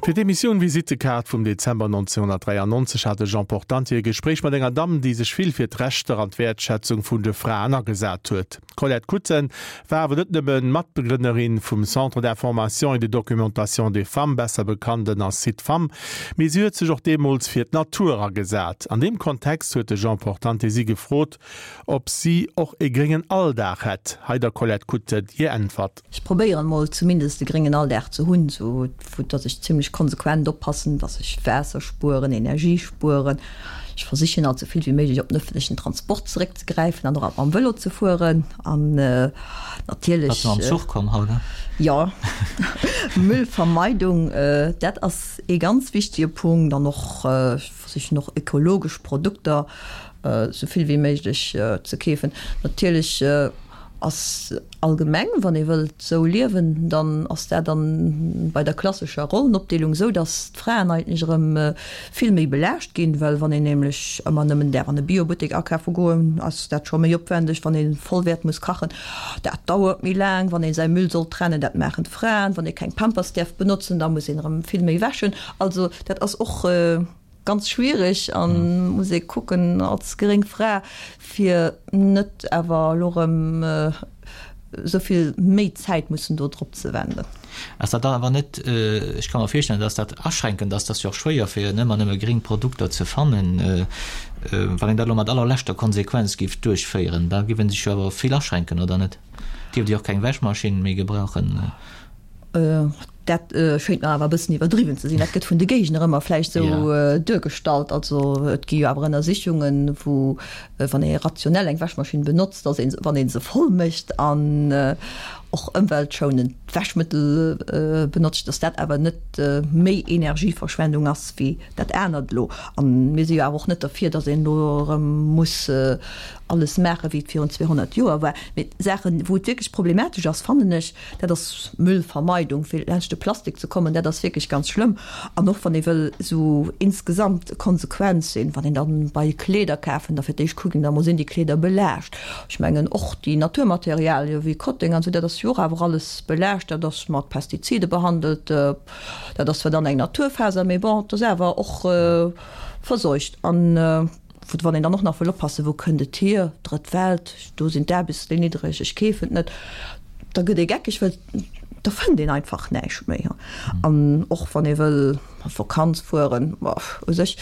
Fir d'Emissioun Visittekaart vum Dezember 1993 hat de Jean Portante e Gespréich mat enger Damm, déi sech vill fir d'Rechter an d'Wäertschätzung vun de Fraen agesat huet. D'Colette Kutten war awer net nëmme Matbegrënnerin vum Centre d'information et de documentation des femmes, besser bekannt ënner Cid-Femmes, mee si huet sech och deemools fir d'Natur agesat. An deem Kontext huet de Jean Portante si gefrot, ob si och e gréngen Alldag hätt. Hei der Colette Kutten hir Äntwert. Ech probéieren mol zumindest e gréngen Alldag ze hunn, sou vu dass ech zimlech konsequent oppassen, dass ech Waasser spueren, Energie spueren. Ech versichen alt sou vill wéi méiglech op den ëffentlechen Transport zeréckzegräifen an och alt mam Vëlo ze fueren an natierlech. Bass du mam Zuch komm haut? Jo, Müllvermeidung, dat ass ee ganz wichtege Punkt an och ech versichen och ökologesch Produkter sou vill wéi méiglech ze keefen. Natierlech ass allgemeng, wann ee wëllt sou liewen, dann ass dat dann bei der klassescher Rollenopdeelung sou, datt d'Fraen eigentlech erëm vill méi belaascht ginn, well wann een nämlech ëmmer nëmmen däerf an e Biobuttek akafe goen, ass dat scho méi opwendeg, wann ee vollwäert muss kachen, dat dauert méi laang, wann ee säi Müll soll trennen, dat maachen d'Fraen, wann ee keng Pampers däerf benotzen, da muss een erëm vill méi wäschen. Also dat ass och. Ganz schwiereg an muss ee kucken als gréng Fra fir net awer elo rëm esou vill méi Zäit mussen do drop ze wenden. Ass dat dann awer net, ech ka mer virstellen, dass dat aschränkend ass, dat ass jo och schwéier fir ëmmer nëmme gréng Produkter ze fannen, wann een dat elo mat allerleschter Konsequenz géif duerchféieren, da géif ee sech jo awer vill aschränken, oder net? Dierft Dir och keng Wäschmaschinn méi gebrauchen? Dat schéngt mer awer e bëssen iwwerdriwwen ze sinn. Dat gëtt vun de Géigner ëmmer vläicht esou duergestallt. Also et gi jo awer Ënnersichungen, wou, wann ee rationell eng Wäschmaschinn benotzt, dass ee, wann ee se voll mécht an och ëmweltschounend Wäschmëttel benotzt, dass dat awer net méi Energieverschwendung ass wéi dat anert elo. A mir si jo awer och net derfir, dass een elo erëm muss alles maachen, wéi et virun 200 Joer war. Mee Saachen, wou et wierklech problematesch ass, fannen ech, Dat ass Müllvermeidung, fir laanscht de Plastik ze kommen, dat ass wierklech ganz schlëmm. An och wann ee wëll esou insgesamt konsequent sinn, wann een dann bei Kleeder kafen, da fir d'éischt kucken, da mol sinn déi Kleeder belaascht. Ech mengen och déi Naturmaterialie wéi Kotteng an esou, dat ass jo och awer alles belaascht, dat ass mat Pestizide behandelt, dat ass zwar dann eng Naturfaser, mee bon, et ass awer och verseucht. An. Wann een dann och nach wëll oppassen, wou kënnt et hier, Drëtt Welt, do sinn d'Aarbechtsléin niddreg, ech keefen et net, da gëtt ee geckeg, well da fënnt een einfach näischt méi. An och wann ee wëll a Vakanz fueren, u sech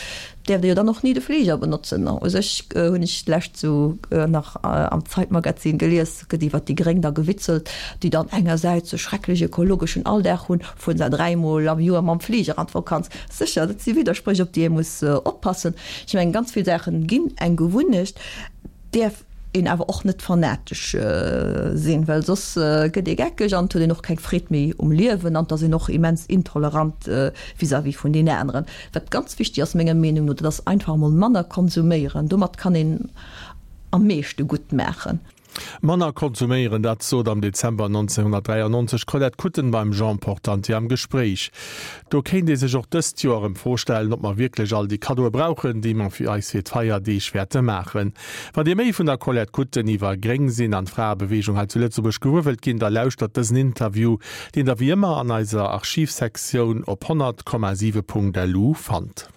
däerft ee jo dann och ni de Fliger benotzen. U sech hunn ech d'lescht sou nach am Zeitmagazin gelies, gëtt iwwer déi Gréng da gewitzelt, déi dann engersäits e schrecklech ökologeschen Alldag hunn, fueren se dräimol am Joer mam Fliger an d'Vakanz. Sécher, dat si Widderspréch, op déi ee muss oppassen. Ech mengen, ganz vill Saache ginn eng Gewunnecht, däerf een awer och net fanatesch sinn, well soss gëtt ee geckeg an et huet een och keng Freed méi um Liewen an et ass een och immens intolerant vis-à-vis vun den aneren. Wat ganz wichteg ass menger Meenung no, dat ass einfach emol manner konsuméieren. Domat kann een am meeschte gutt maachen. Manner konsuméieren, dat sot am Dezember 1993 d'Colette Kutten beim Jean Portante am Gespréich. Do kéint ee sech och dëst Joer erëm d'Fro stellen, ob mer wierklech all déi Kaddoe brauchen, déi mer fir eis fir d'Feierdeeg wäerte maachen. Wann Dir méi vun der Colette Kutten iwwer Gréng sinn an d'Fraebeweegung hei zu Lëtzebuerg gewuer wëllt ginn, da lauschtert dësen Interview, deen Der wéi ëmmer an eiser Archivsektioun op 100,7.lu fannt.